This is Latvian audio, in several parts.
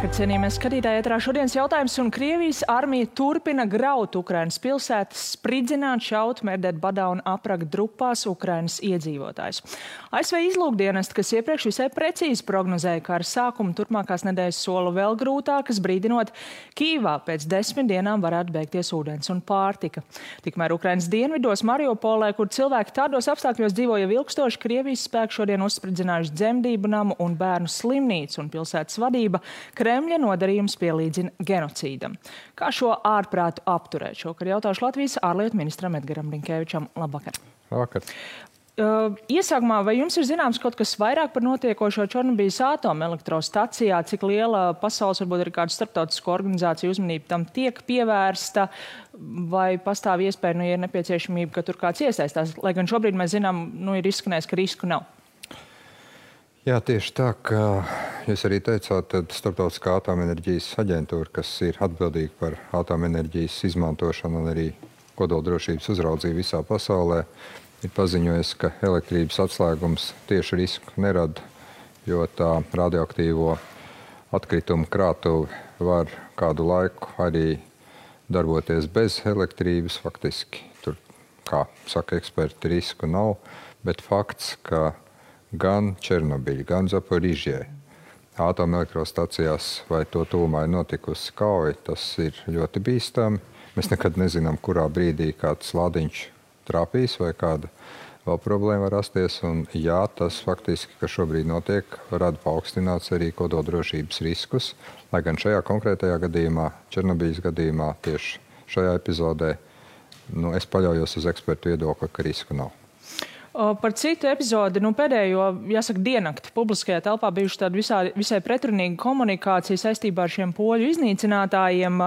Labvakar, cienījamies skatītāji, ētrā šodienas jautājums, un Krievijas armija turpina graut Ukrainas pilsētas, spridzināt, šaut, mērdēt badā un aprakt drupās Ukrainas iedzīvotājus. ASV izlūkdienesti, kas iepriekš visai precīzi prognozēja kara sākumu, turpmākās nedēļas sola vēl grūtākas, brīdinot, Kīvā pēc 10 dienām varētu beigties ūdens un pārtika. Tikmēr Ukrainas dienvidos Mariupolē, kur cilvēki tādos apstākļos dzīvo jau ilgstoši, Krievijas spēki šodien uzspridzinājuši dzemdību namu un bērnu slimnīcu, un pilsētas vadība Kremļa nodarījums pielīdzina genocīdam. Kā šo ārprātu apturēt? Šokar jautāšu Latvijas ārlietu ministram Edgaram Rinkēvičam. Labvakar. Labvakar. Iesākumā, vai jums ir zināms kaut kas vairāk par notiekošo Černobijas atomelektrostacijā, cik liela pasaules, varbūt arī kāda starptautisko organizāciju uzmanība tam tiek pievērsta, vai pastāv iespēja, ja ir nepieciešamība, ka tur kāds iesaistās? Lai gan šobrīd mēs zinām, ir izskanējis, ka risku nav. Jā, tieši tā, ka jūs arī teicāt, tad Starptautiskā atomenerģijas aģentūra, kas ir atbildīga par atomenerģijas izmantošanu un arī kodoldrošības uzraudzību visā pasaulē, ir paziņojis, ka elektrības atslēgums tieši risku nerada, jo tā radioaktīvo atkritumu krātuve var kādu laiku arī darboties bez elektrības. Faktiski tur, kā saka eksperti, risku nav, bet fakts, ka gan Černobiļa, gan Zaporižjē atomelektrostacijās vai to tuvumā ir notikusi kauja, tas ir ļoti bīstami. Mēs nekad nezinām, kurā brīdī kāds lādiņš trāpīs vai kāda vēl problēma var rasties. Un jā, tas faktiski, kas šobrīd notiek, rada paaugstināts arī kodoldrošības riskus. Lai gan šajā konkrētajā gadījumā, Černobiļas gadījumā, tieši šajā epizodē, es paļaujos uz ekspertu viedokli, ka risku nav. Par citu epizodi, pēdējo, jāsaka, diennakti publiskajā telpā bijuši tāda visai pretrunīga komunikācija saistībā ar šiem poļu iznīcinātājiem.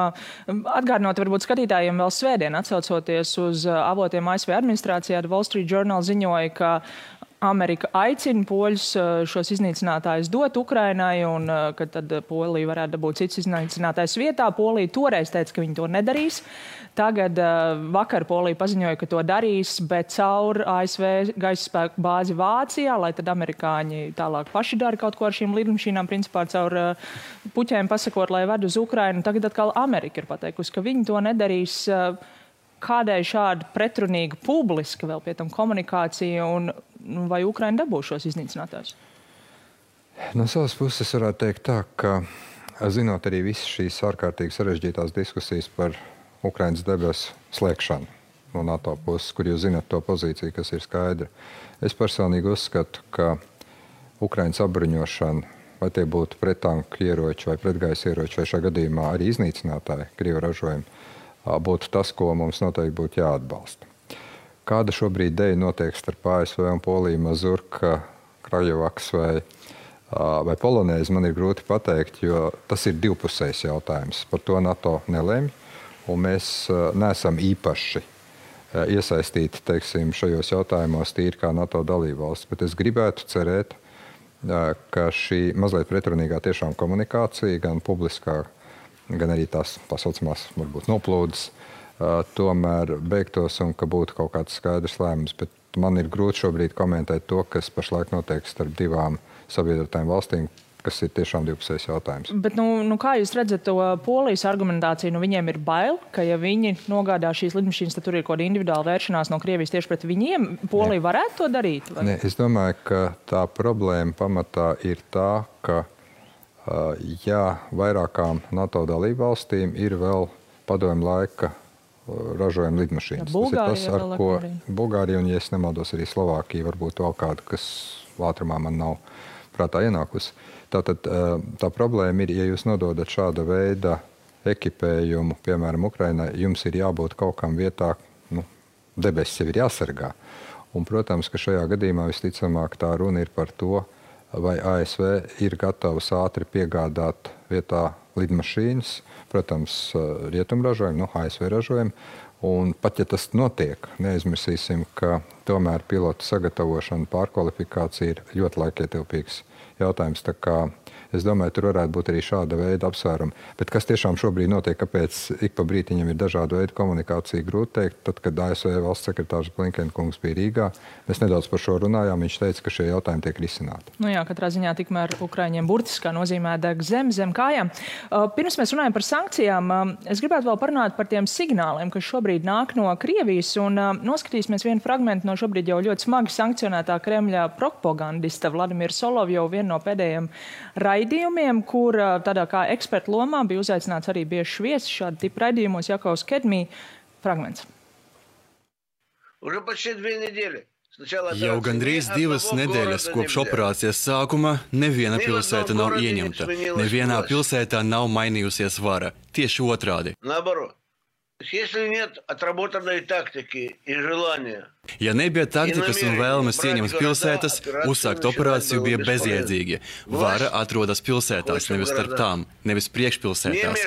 Atgādinot varbūt skatītājiem vēl svētdien, atsaucoties uz avotiem ASV administrācijā, Wall Street Journal ziņoja, ka Amerika aicina poļus šos iznīcinātājus dot Ukrainai, un ka tad Polija varētu dabūt cits iznīcinātājs vietā. Polija toreiz teica, ka viņi to nedarīs. Tagad vakar Polija paziņoja, ka to darīs, bet caur ASV gaisa spēku bāzi Vācijā, lai tad amerikāņi tālāk paši dara kaut ko ar šīm lidmašīnām, principā caur puķēm pasakot, lai ved uz Ukrainu. Tagad atkal Amerika ir pateikusi, ka viņi to nedarīs. Kādēļ šāda pretrunīga publiska vēl pie tam komunikācija, un vai Ukraina dabūs šos iznīcinātājus? No savas puses varētu teikt tā, ka zinot arī visas šīs ārkārtīgi sarežģītās diskusijas par Ukrainas debesu slēgšanu no NATO puses, kur jūs zinat to pozīciju, kas ir skaidra. Es personīgi uzskatu, ka Ukrainas apbruņošana, vai tie būtu prettanku ieroči vai pretgaisa ieroči, vai šajā gadījumā arī iznīcinātāji, Krievu ražojumi, būtu tas, ko mums noteikti būtu jāatbalsta. Kāda šobrīd deja notiek starp ASV un Poliju, Mazurka, Krajovaks vai Polonēzi, man ir grūti pateikt, jo tas ir divpusējs jautājums. Par to NATO nelemj, un mēs neesam īpaši iesaistīti, teiksim, šajos jautājumos tīri kā NATO dalībvalsts. Bet es gribētu cerēt, ka šī mazliet pretrunīgā tiešām komunikācija, gan publiskā, gan arī tās pasaucamās, varbūt noplūdes, tomēr beigtos un ka būtu kaut kāds skaidrs lēmums. Bet man ir grūti šobrīd komentēt to, kas pašlaik notiek starp divām sabiedrotajām valstīm, kas ir tiešām divpusējs jautājums. Bet kā jūs redzat to Polijas argumentāciju? Viņiem ir bail, ka ja viņi nogādā šīs lidmašīnas, tad tur ir kaut kāda individuāla vēršanās no Krievijas tieši pret viņiem. Polija varētu to darīt? Vai? Ne, es domāju, ka tā problēma pamatā ir tā, ka vairākām NATO dalībvalstīm ir vēl padomju laika ražojuma lidmašīnas. Tas ir tas, ar ko Bulgārija un, ja es nemaldos, arī Slovākija, varbūt vēl kāda, kas ātrumā man nav prātā ienākusi. Tātad tā problēma ir, ja jūs nododat šāda veida ekipējumu, piemēram, Ukrainai, jums ir jābūt kaut kam vietā, debesis jau ir jāsargā. Un, protams, ka šajā gadījumā visticamāk tā runa ir par to, vai ASV ir gatavs ātri piegādāt vietā lidmašīnas, protams, rietumu ražojumu, ASV ražojumu. Un pat ja tas notiek, neaizmirsīsim, ka tomēr pilotu sagatavošana, pārkvalifikācija ir ļoti laikietilpīgs jautājums. Tā kā Es domāju, tur varētu būt arī šāda veida apsvērumi. Bet kas tiešām šobrīd notiek, kāpēc ik pa brītiņam ir dažāda veida komunikācija, grūti teikt. Tad, kad ASV valsts sekretārs Blinkenkungs bija Rīgā, mēs nedaudz par šo runājām. Viņš teica, ka šie jautājumi tiek risināti. Nu jā, katrā ziņā tikmēr Ukraiņiem burtiskā nozīmē deg zem kājām. Pirms mēs runājam par sankcijām, es gribētu vēl parunāt par tiem signāliem, kas šobrīd nāk no Krievijas, un noskatīsimies vienu fragmentu no šobrīd jau ļoti smagi sankcionētā Kremļa propagandista Vladimira Solovjova, vienu no pēdējiem raidījumiem, kur tādā kā eksperta lomā bija uzaicināts arī bieži viesis šāda tipa raidījumos Jakovs Kedmī. Fragments. Jau gandrīz 2 nedēļas kopš operācijas sākuma neviena pilsēta nav ieņemta. Nevienā pilsētā nav mainījusies vara. Tieši otrādi. Ja nebija taktikas un vēlmes ieņemt pilsētas, uzsākt operāciju bija bezjēdzīgi. Vara atrodas pilsētās, nevis starp tām, nevis priekšpilsētās.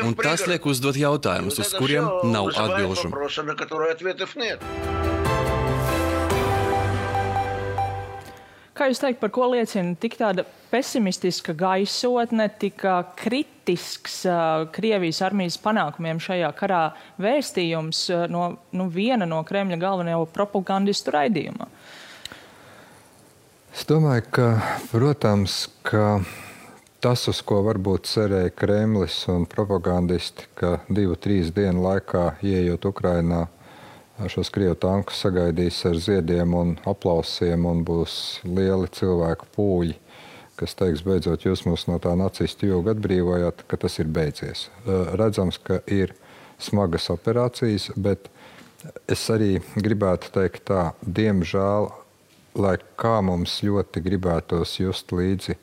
Un tas liek uzdot jautājumus, uz kuriem nav atbilžu. Kā jūs teikt, par ko liecina tik tāda pesimistiska gaisotne, tik kritisks Krievijas armijas panākumiem šajā karā vēstījums no viena no Kremļa galvenajā propagandistu raidījumā? Es domāju, ka, protams, ka tas, uz ko varbūt cerēja Kremlis un propagandisti, ka 2-3 dienu laikā, ieejot Ukrainā, šos Krievu tankus sagaidīs ar ziediem un aplausiem un būs lieli cilvēku pūļi, kas teiks, beidzot jūs mūs no tā nacistu jūga atbrīvojāt, ka tas ir beidzies. Redzams, ka ir smagas operācijas, bet es arī gribētu teikt tā, diemžēl, lai kā mums ļoti gribētos just līdzi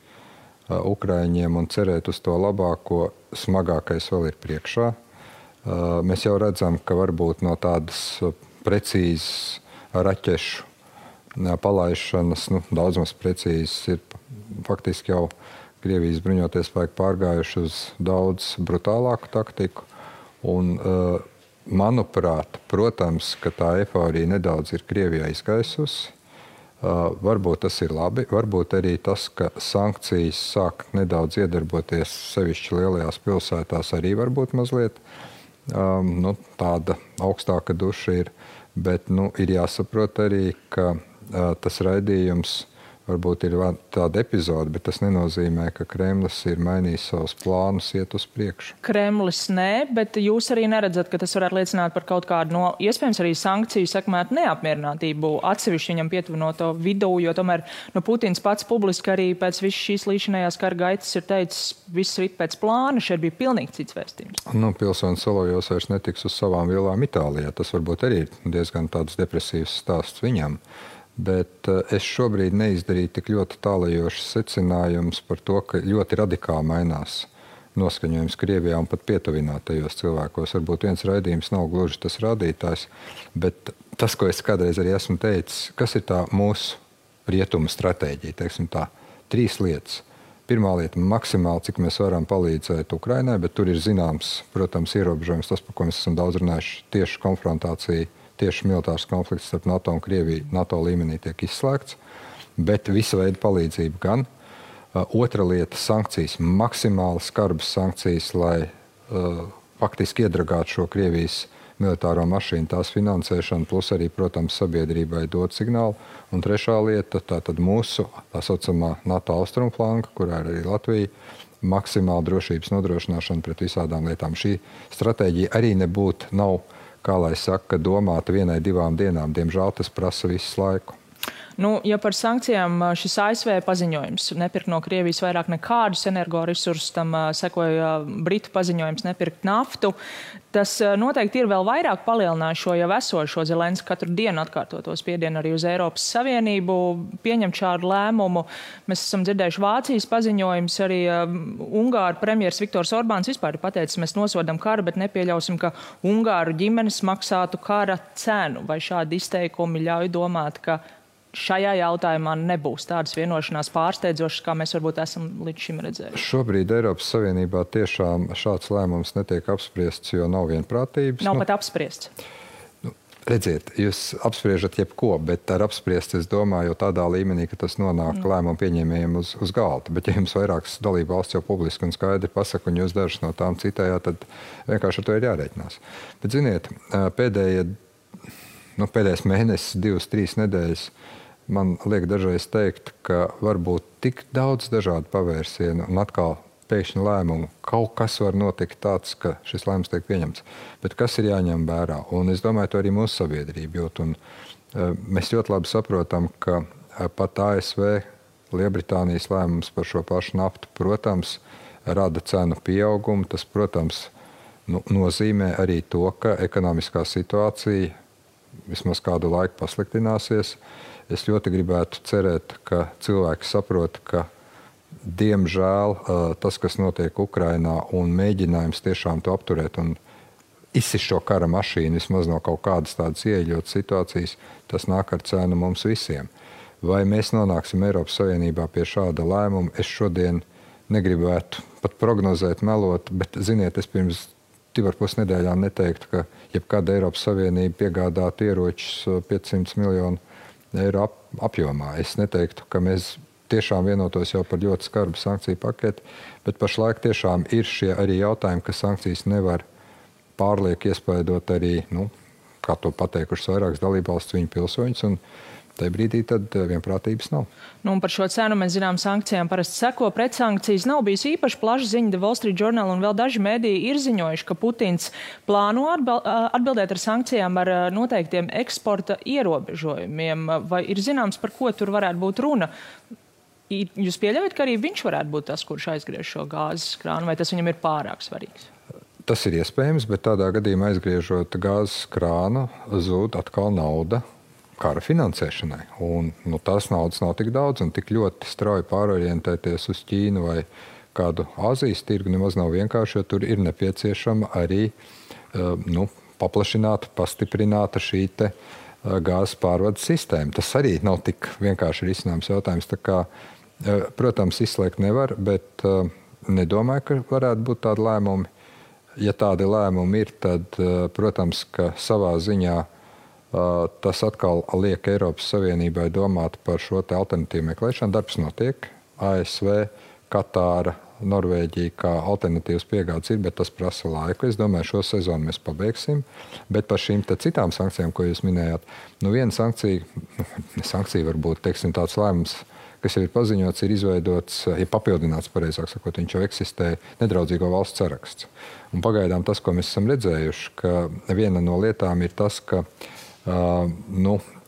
Ukraiņiem un cerēt uz to labāko, smagākais vēl ir priekšā. Mēs jau redzam, ka varbūt no tādas precīzas raķešu palaišanas, daudz maz precīzas ir faktiski jau Krievijas bruņoties spēki pārgājuši uz daudz brutālāku taktiku. Un, manuprāt, protams, ka tā eifórija nedaudz ir Krievijā izgaisusi. Varbūt tas ir labi, varbūt arī tas, ka sankcijas sāk nedaudz iedarboties sevišķi lielajās pilsētās, arī varbūt mazliet tāda augstāka duša ir, bet ir jāsaprot arī, ka tas raidījums varbūt ir tāda epizode, bet tas nenozīmē, ka Kremlis ir mainījis savus plānus iet uz priekšu. Kremlis nē, bet jūs arī neredzat, ka tas varētu liecināt par kaut kādu iespējams arī sankciju sekmētu neapmierinātību atsevišķi viņam pietuvinoto vidū, jo tomēr Putins pats publiski arī pēc visas šīs līdzinājās kara gaitas ir teicis, viss rit pēc plāna, šeit bija pilnīgi cits vēstījums. Pilsonis Solovjovs vairs netiks uz savām vielām Itālijā. Tas varbūt arī ir diezgan tāds depresīvs stāsts viņam. Bet es šobrīd neizdarīju tik ļoti tālajošas secinājumus par to, ka ļoti radikāli mainās noskaņojums Krievijā un pat pietuvinātajos cilvēkos. Varbūt viens raidījums nav gluži tas rādītājs, bet tas, ko es kādreiz arī esmu teicis, kas ir tā mūsu rietumu stratēģija, teiksim tā, 3 lietas. Pirmā lieta - maksimāli, cik mēs varam palīdzēt Ukrainai, bet tur ir zināms, protams, ierobežojums, tas, par ko mēs esam daudz runājuši, tieši konfrontācija, tieši militārs konflikts starp NATO un Krieviju NATO līmenī tiek izslēgts, bet visa veida palīdzība gan. Otra lieta - sankcijas, maksimāli skarbas sankcijas, lai faktiski iedragātu šo Krievijas militāro mašīnu, tās finansēšanu, plus arī, protams, sabiedrībai dot signālu. Un trešā lieta - tātad mūsu tā saucamā NATO austrumflanka, kurā ir arī Latvija, maksimāla drošības nodrošināšana pret visādām lietām. Šī stratēģija arī nav, kā lai saka, domāta 1-2 dienām. Diemžēl tas prasa visu laiku. Ja par sankcijām šis ASV paziņojums nepirkt no Krievijas vairāk nekādus energoresursus, tam sekoja Britu paziņojums nepirkt naftu, tas noteikti ir vēl vairāk palielinājis šo jau esošo Zelenska katru dienu atkārtoto spiedienu arī uz Eiropas Savienību pieņemt šādu lēmumu. Mēs esam dzirdējuši Vācijas paziņojums, arī Ungāru premjers Viktors Orbāns vispār ir pateicis, mēs nosodam karu, bet nepieļausim, ka Ungāru ģimenes maksātu kara cenu. Vai šādi izteikumi ļauj domāt, ka šajā jautājumā nebūs tādas vienošanās pārsteidzošas, kā mēs varbūt esam līdz šim redzējuši? Šobrīd Eiropas Savienībā tiešām šāds lēmums netiek apspriests, jo nav vienprātības. Nav pat apspriests. Redziet, jūs apspriežat jebko, bet ar apspriest, es domāju, jau tādā līmenī, ka tas nonāk lēmumu pieņēmējiem uz galda. Bet ja jums vairākas dalību valsts jau publiski un skaidri pasaka, un jūs dažas no tām citējāt, tad vienkārši ar to ir jārēķinās. Bet, ziniet, pēdējais mēnesis, 2-3 nedēļas, man liek dažreiz teikt, ka var būt tik daudz dažādu pavērsienu un atkal pēkšņi lēmumu. Kaut kas var notikt tāds, ka šis lēmums tiek pieņemts. Bet kas ir jāņem vērā? Un es domāju, to arī mūsu sabiedrība jūt. Un, mēs ļoti labi saprotam, ka pat ASV, Lielbritānijas lēmums par šo pašu naftu, protams, rada cenu pieaugumu. Tas, protams, nozīmē arī to, ka ekonomiskā situācija vismaz kādu laiku pasliktināsies. Es ļoti gribētu cerēt, ka cilvēki saprot, ka diemžēl tas, kas notiek Ukrainā un mēģinājums tiešām to apturēt un izsist šo kara mašīnu vismaz no kaut kādas tādas ieeļotas situācijas, tas nāk ar cenu mums visiem. Vai mēs nonāksim Eiropas Savienībā pie šāda lēmuma? Es šodien negribētu pat prognozēt, melot, bet, ziniet, es pirms 2,5 nedēļām neteiktu, ka jebkāda Eiropas Savienība piegādātu ieročus 500 miljonu eiro apjomā. Es neteiktu, ka mēs tiešām vienotos jau par ļoti skarbu sankciju paketi, bet pašlaik tiešām ir šie arī jautājumi, ka sankcijas nevar pārlieku iespaidot arī, kā to pateikušas vairākas dalībvalstis, viņu pilsoņus, un tajā brīdī tad vienprātības nav. Un par šo cenu mēs zinām, sankcijām parasti seko pretsankcijas. Nav bijis īpaši plaša ziņa, The Wall Street Journal un vēl daži mediji ir ziņojuši, ka Putins plāno atbildēt ar sankcijām ar noteiktiem eksporta ierobežojumiem. Vai ir zināms, par ko tur varētu būt runa? Jūs pieļaujat, ka arī viņš varētu būt tas, kurš aizgriež šo gāzes krānu, vai tas viņam ir pārāk svarīgs? Tas ir iespējams, bet tādā gadījumā aizgriežot gāzes krānu, zūd atkal nauda kara finansēšanai. Un tās naudas nav tik daudz un tik ļoti strauji pārorientēties uz Ķīnu vai kādu Āzijas tirgu nemaz nav vienkārši, jo tur ir nepieciešama arī paplašināta, pastiprināta šī te gāzes pārvades sistēma. Tas arī nav tik vienkārši risināms jautājums. Tā kā, protams, izslēgt nevar, bet nedomāju, ka varētu būt tādi lēmumi. Ja tādi lēmumi ir, tad, protams, ka savā ziņā tas atkal liek Eiropas Savienībai domāt par šo te alternatīvu meklēšanu. Darbs notiek. ASV, Katāra, Norvēģija kā alternatīvas piegādes ir, bet tas prasa laiku. Es domāju, šo sezonu mēs pabeigsim. Bet par šīm citām sankcijām, ko jūs minējāt, viena sankcija varbūt, teiksim, tāds lēmums, kas jau ir paziņots, ir izveidots, ir papildināts, pareizāk sakot, viņš jau eksistē nedraudzīgo valstu saraksts. Un pagaidām tas, ko mēs esam redzējuši, ka viena no lietām ir tas, ka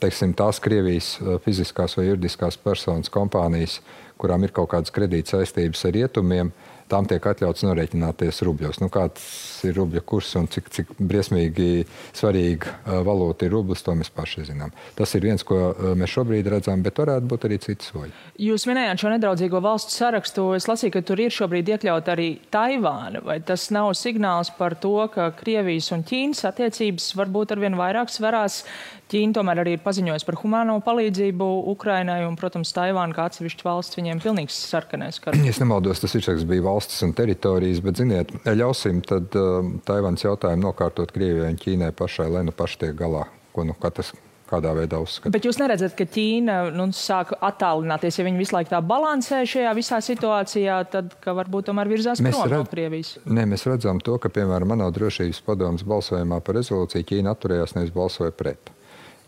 teiksim, tās Krievijas fiziskās vai juridiskās personas kompānijas, kurām ir kaut kādas kredīta saistības ar rietumiem, tām tiek atļauts norēķināties rubļos. Kāds ir rubļa kurs un cik briesmīgi svarīga valūta ir rublis, to mēs paši zinām. Tas ir viens, ko mēs šobrīd redzam, bet varētu būt arī citi soļi. Jūs minējāt šo nedraudzīgo valstu sarakstu. Es lasīju, ka tur ir šobrīd iekļaut arī Taivāna. Vai tas nav signāls par to, ka Krievijas un Ķīnas attiecības varbūt arvien vairāk sverās? Ķīna tomēr arī ir paziņojusi par humāno palīdzību Ukrainai un, protams, Taivāna kā atsevišķa valsts viņiem pilnīgs sarkanais kars. Es nemaldos, tas virsraksts bija valstis un teritorijas, bet, ziniet, ļausim tad Taivānas jautājumu nokārtot Krievijai un Ķīnai pašai, lai paši tiek galā, ko katrs kādā veidā uzskata. Bet jūs neredzat, ka Ķīna sāk attālināties, ja viņi visu laiku tā balansē šajā visā situācijā, tad, ka varbūt tomēr virzās prom no Krievijas? Nē, mēs redzam to, ka, piemēram, ANO drošības padomes balsojumā par rezolūciju Ķīna atturējās, nevis balsoja pret.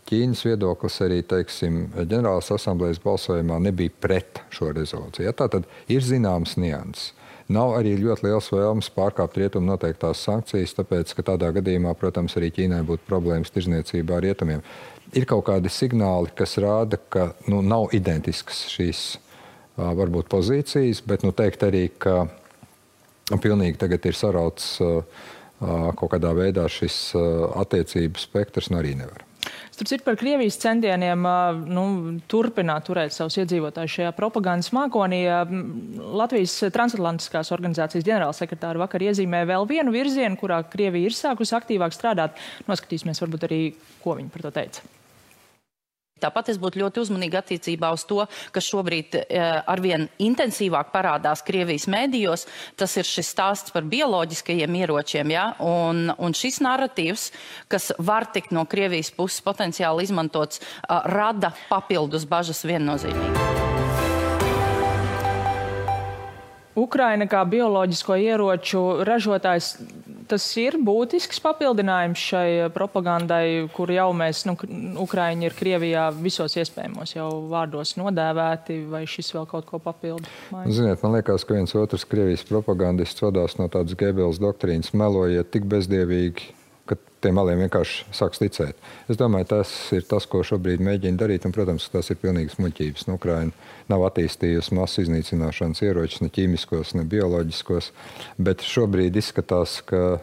Ķīnas viedoklis arī, teiksim, ģenerālās asamblējas balsojumā nebija pret šo rezolūciju. Tātad ir zināms nianses. Nav arī ļoti liels vēlmes pārkāpt rietumu noteiktās sankcijas, tāpēc, ka tādā gadījumā, protams, arī Ķīnai būtu problēmas tirzniecībā ar rietumiem. Ir kaut kādi signāli, kas rāda, ka nav identiskas šīs varbūt pozīcijas, bet teikt arī, ka pilnīgi tagad ir sarauts kaut kādā veidā šis attiecību spektrs, arī nevar. Starp citu, par Krievijas centieniem turpināt turēt savus iedzīvotājus šajā propagandas mākonī. Latvijas transatlantiskās organizācijas ģenerālsekretāra vakar iezīmē vēl vienu virzienu, kurā Krievija ir sākusi aktīvāk strādāt. Noskatīsimies varbūt arī, ko viņi par to teica. Tāpat es būtu ļoti uzmanīgi attiecībā uz to, kas šobrīd arvien intensīvāk parādās Krievijas mēdījos. Tas ir šis stāsts par bioloģiskajiem ieročiem, ja? Un šis narratīvs, kas var tikt no Krievijas puses potenciāli izmantots, rada papildus bažas viennozīmīgi. Ukraina kā bioloģisko ieroču ražotājs, tas ir būtisks papildinājums šai propagandai, kur jau mēs, Ukraiņi ir Krievijā visos iespējamos jau vārdos nodēvēti, vai šis vēl kaut ko papildu? Ziniet, man liekas, ka viens otrs Krievijas propagandists vadās no tādas Gēbeles doktrīnas, melojiet tik bezdievīgi, ka tiem meliem vienkārši sāks ticēt. Es domāju, tas ir tas, ko šobrīd mēģina darīt, un, protams, tas ir pilnīgas muļķības. Ukraina nav attīstījusi masu iznīcināšanas ieročus, ne ķīmiskos, ne bioloģiskos, bet šobrīd izskatās, ka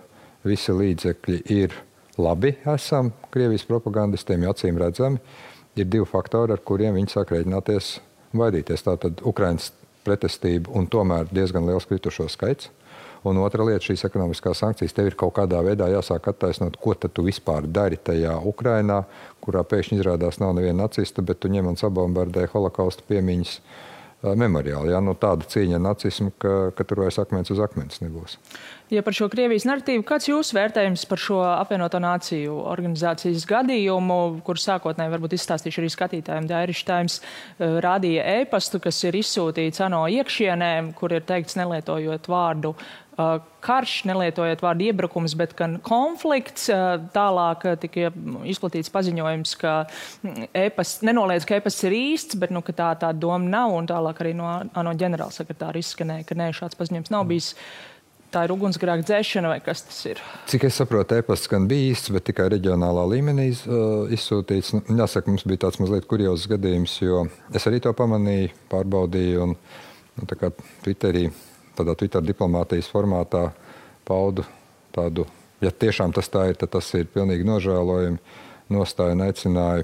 visi līdzekļi ir labi esam Krievijas propagandistiem, jo acīm redzami. Ir divi faktori, ar kuriem viņi sāk rēķināties vaidīties. Tātad Ukrainas pretestība un tomēr diezgan liels kritušo skaits. Un otra lieta, šīs ekonomiskās sankcijas, tev ir kaut kādā veidā jāsāk attaisnot, ko tad tu vispār dari tajā Ukrainā, kurā pēkšņi izrādās nav neviena nacista, bet tu ņem un sabombardē holokausta piemiņas memoriāli. Ja? Tāda cīņa ar nacismu, ka tur vairs akmens uz akmens nebūs. Ja par šo Krievijas narratīvu, kāds jūsu vērtējums par šo apvienoto nāciju organizācijas gadījumu, kur sākotnēji varbūt izstāstīšu arī skatītājiem, Irish Times rādīja e-pastu, kas ir izsūtīts ANO iekšienē, kur ir teikts nelietojot vārdu karš, nelietojot vārdu iebrukums, bet gan konflikts. Tālāk tika izplatīts paziņojums, ka nenoliedz, ka e-pasts ir īsts, bet ka tā doma nav, un tālāk arī no ANO ģenerālsekretāra izskanēja, ka šāds paziņojums nav bijis. Tā ir ugunsgrēka dzēšana, vai kas tas ir? Cik es saprotu, e-pasts gan bija īsts, bet tikai reģionālā līmenī izsūtīts. Jāsaka, mums bija tāds mazliet kuriozs gadījums, jo es arī to pamanīju, pārbaudīju, un tā kā Twitterī, tādā Twitter diplomātijas formātā paudu tādu, ja tiešām tas tā ir, tad tas ir pilnīgi nožēlojami. Nostāju un aicināja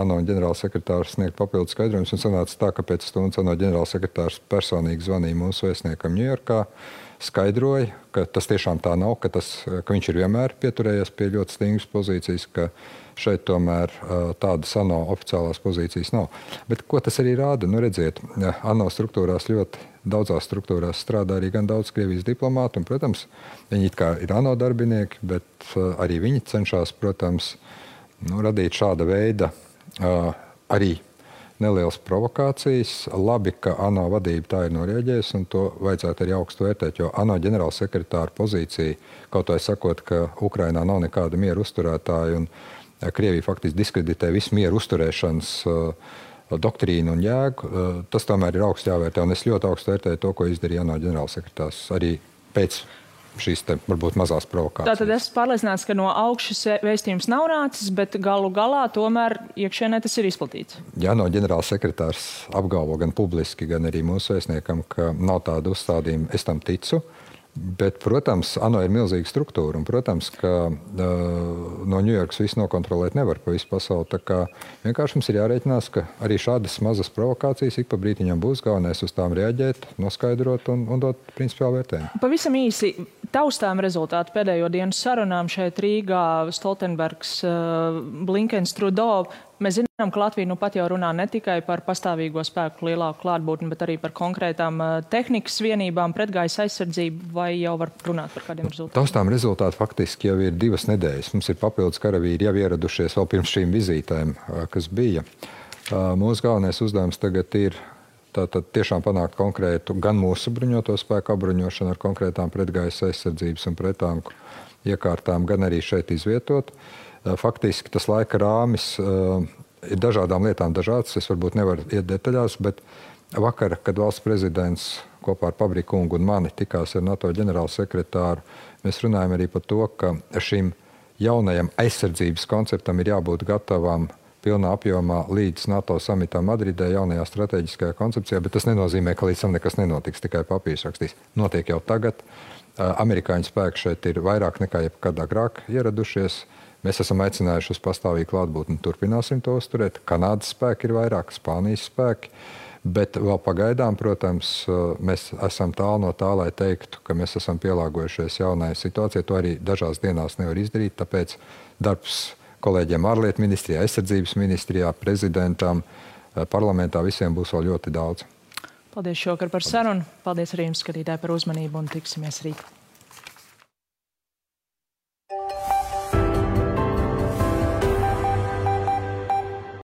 ANO ģenerālsekretārs sniegt papildu skaidrojumus, un sanāca tā, ka pēc stundas ANO ģenerālsekretārs personīgi zvanīja mūsu vēstniekam Ņujorkā, skaidroja, ka tas tiešām tā nav, ka viņš ir vienmēr pieturējies pie ļoti stingras pozīcijas, ka šeit tomēr tādas ANO oficiālās pozīcijas nav. Bet ko tas arī rāda? Redziet, ANO struktūrās ļoti daudzās struktūrās strādā arī gan daudz Krievijas diplomātu, un, protams, viņi it kā ir ANO darbinieki, bet arī viņi cenšas, protams, radīt šāda veida arī nelielas provokācijas. Labi, ka ANO vadība tā ir norēģējusi, un to vajadzētu arī augstu vērtēt, jo ANO ģenerālsekretāra pozīcija, kaut vai sakot, ka Ukrainā nav nekāda miera uzturētāja, un Krievija faktiski diskreditē visu mieru uzturēšanas doktrīnu un jēgu, tas tomēr ir augstu jāvērtē, un es ļoti augstu vērtēju to, ko izdarīja ANO ģenerālsekretārs arī pēc šīs varbūt mazās provokācijas. Tātad esmu pārliecināts, ka no augšas vēstījums nav nācis, bet galu galā tomēr iekšienē tas ir izplatīts. Jā, no ģenerālsekretārs apgalvo gan publiski, gan arī mūsu vēstniekam, ka nav tāda uzstādījuma, es tam ticu. Bet, protams, ANO ir milzīga struktūra, un, protams, ka no Ņujorkas visu nokontrolēt nevar pa visu pasauli. Tā kā vienkārši mums ir jārēķinās, ka arī šādas mazas provokācijas ik pa brītiņam būs, galvenais uz tām reaģēt, noskaidrot un dot principiālu vērtējumu. Pavisam īsi, taustām rezultāti pēdējo dienu sarunām šeit Rīgā, Stoltenbergs, Blinkens, Trudeau. Mēs zinām, ka Latvija pat jau runā ne tikai par pastāvīgo spēku lielāku klātbūtni, bet arī par konkrētām tehnikas vienībām, pretgaisa aizsardzību, vai jau var runāt par kādiem rezultātiem? Taustām rezultāti faktiski jau ir 2 nedēļas. Mums ir papildus karavīri jau ieradušies vēl pirms šīm vizītēm, kas bija. Mūsu galvenais uzdevums tagad ir tātad tiešām panākt konkrētu gan mūsu bruņoto spēku apbruņošanu ar konkrētām pretgaisa aizsardzības un pretanku iekārtām, gan arī šeit izvietot. Faktiski tas laika rāmis ir dažādām lietām dažāds. Es varbūt nevaru iet detaļās, bet vakar, kad valsts prezidents kopā ar Pabriku kungu un mani tikās ar NATO ģenerālsekretāru, mēs runājam arī par to, ka šim jaunajam aizsardzības konceptam ir jābūt gatavam pilnā apjomā līdz NATO samitā Madridē, jaunajā strateģiskajā koncepcijā, bet tas nenozīmē, ka līdz tam nekas nenotiks, tikai papīrs rakstīs. Notiek jau tagad. Amerikāņu spēki šeit ir vairāk nekā jebkad agrāk ieradušies. Mēs esam aicinājuši uz pastāvīgu klātbūtni, turpināsim to uzturēt. Kanādas spēki ir vairāk, Spānijas spēki, bet vēl pagaidām, protams, mēs esam tālu no tā, lai teiktu, ka mēs esam pielāgojušies jaunai situācijai. To arī dažās dienās nevar izdarīt, tāpēc darbs kolēģiem ārlietu ministrijā, aizsardzības ministrijā, prezidentam, parlamentā visiem būs vēl ļoti daudz. Paldies šovakar par sarunu. Paldies arī jums, skatītāji, par uzmanību un tiksimies rīt.